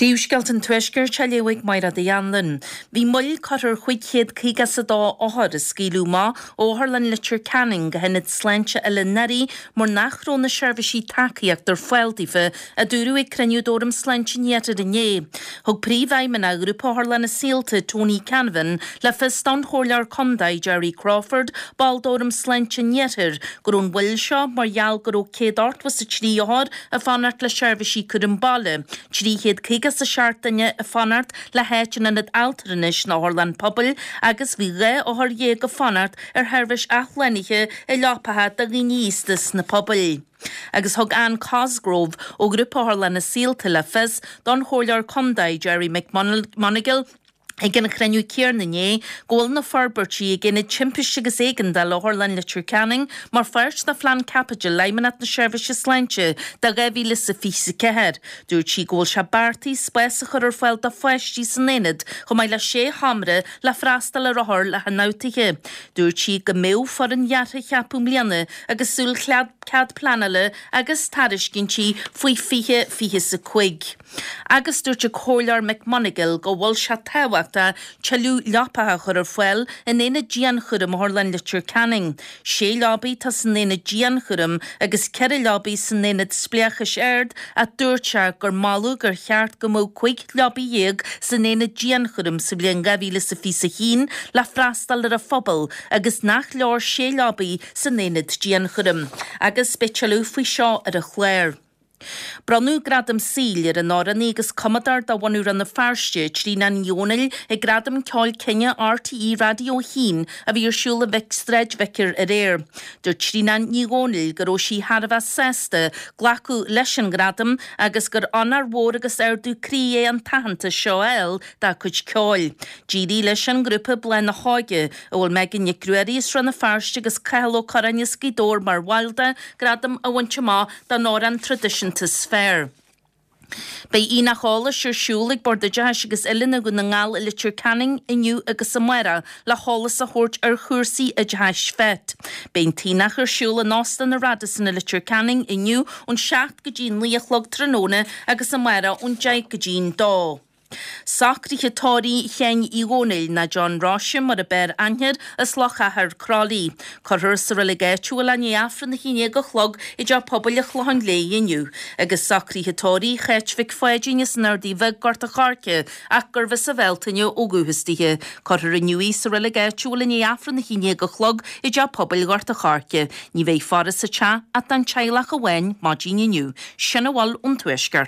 Príomhscéalta an Tuaiscirt á léamh ag Mairéad Uí Anluain. Bhí moill curtha ar 552 othar a scaoileadh amach ó Otharlann Leitir Ceanainn go hIonad Sláinte Oileán Fhearaí mar nach raibh na seirbhísí tacaíochta ar fáil daofa, a dúradh ag cruinniú d'Fhóram Sláinte an Iarthair inné. Thug Príomhfheidhmeannach Ghrúpa Otharlanna Saolta, Tony Canavan, le fios don Chomhairleoir Contae, Gerry Crawford, ball d'Fhóram Sláinte an Iarthair, go raibh an mhoill seo mar gheall go raibh 183 othar ag fanacht le seirbhísí cúram baile, 357 duine ag fanacht le háit in ionad altranais nó otharlann pobail agus bhí 12 othar ag fanacht ar sheirbhís athshlánaithe i leapacha do dhaoine aosta sna pobail. Agus thug Anne Cosgrove ó Ghrúpa Otharlanna Saolta le fios don Chomhairleoir Contae Gerry McMonagall, Ag an chruinniú céanna inné go bhfuil na forbairtí ag Aonad Timpiste agus Éigeandála Otharlann Leitir Ceanainn mar pháirt de Phlean Caipitil Fheidhmeannacht na Seirbhíse Sláinte do 2024. Dúirt sí go bhfuil sé beartaithe spás a chur ar fáil do pháistí san aonad chomh maith le sé sheomra le freastal ar othair le hionfhabhtuithe. Dúirt sí go mbeadh foireann dheartha a cheapadh i mbliana agus súil cead pleanála agus tairiscintí faoi 2025. Agus dúirt an Comhairleoir McMonagall go bhfuil sé tábhachtach tuilleadh leapacha a chur ar fáil in aonad dianchúraim Otharlann Leitir Ceanainn. Sé leabaidh atá san aonad dianchúraim agus ceithre leabaidh san aonad spleáchais ard ach dúirt sé gur moladh gur cheart go mbeadh 15 leabaidh san aonad dianchúraim sa bhliain 2021 le freastal ar an phobal agus nach leor sé leabaidh san aonad dianchúraim. Agus beidh tuilleadh faoi seo ar an chlár. Bronnadh Gradam Saoil ar an amhránaí agus cumadóir de bhunadh Rann na Feirste, Tríona Ní Dhomhnaill, ag Gradaim Ceoil Cine RTÉ Raidió 1 a bhí ar siúl i Sráid Vicar aréir. Dúirt Tríona Ní Dhomhnaill go raibh sí thar a bheith sásta glacadh leis an ngradam agus gur onóir mhór agus ardú croí é an t-aitheantas seo a fháil dá cuid ceoil. D'éirigh leis an ngrúpa Bláth na hÓige, a bhfuil Megan Nic Ruairí as Rann na Feirste agus Cathal Ó Curráin as Gaoth Dobhair mar bhaill de, gradam a bhaint amach don amhrán traidisiúnta is fearr. Beidh aonach eolais ar siúl ag Bord Oideachais agus Oiliúna Dhún na nGall i Leitir Ceanainn inniu agus amárach le heolas a thabhairt ar chúrsaí oideachais FET. Beidh an t-aonach ar siúl in Óstán an Radisson i Leitir Ceanainn inniu ón 7 go dtí 9 a chlog tráthnóna agus amárach ón 10 go dtí an 2. Socruithe tórraimh Sheáin Uí Dhónaill, nó John Róise mar ab fhearr aithne air, as Loch Achair, Crolly. Cuirfear sa reilig áitiúil é i ndiaidh Aifreann a 11 a chlog i dTeach Pobail an Chlocháin Léith inniu. Agus socruithe tórraimh Cháit Mhic Pháidín as an Ardaidh Bheag, Gort a' Choirce, ach gurbh as an Bhealtaine ó dhúchas dithe. Cuirfear inniu í sa reilig áitiúil i ndiaidh Aifreann a 11 a chlog i dTeach Pobail Ghort a' Choirce. Ní bheidh faire sa teach ach don teaghlach amháin maidin inniu. Sin a bhfuil ón Tuaisceart.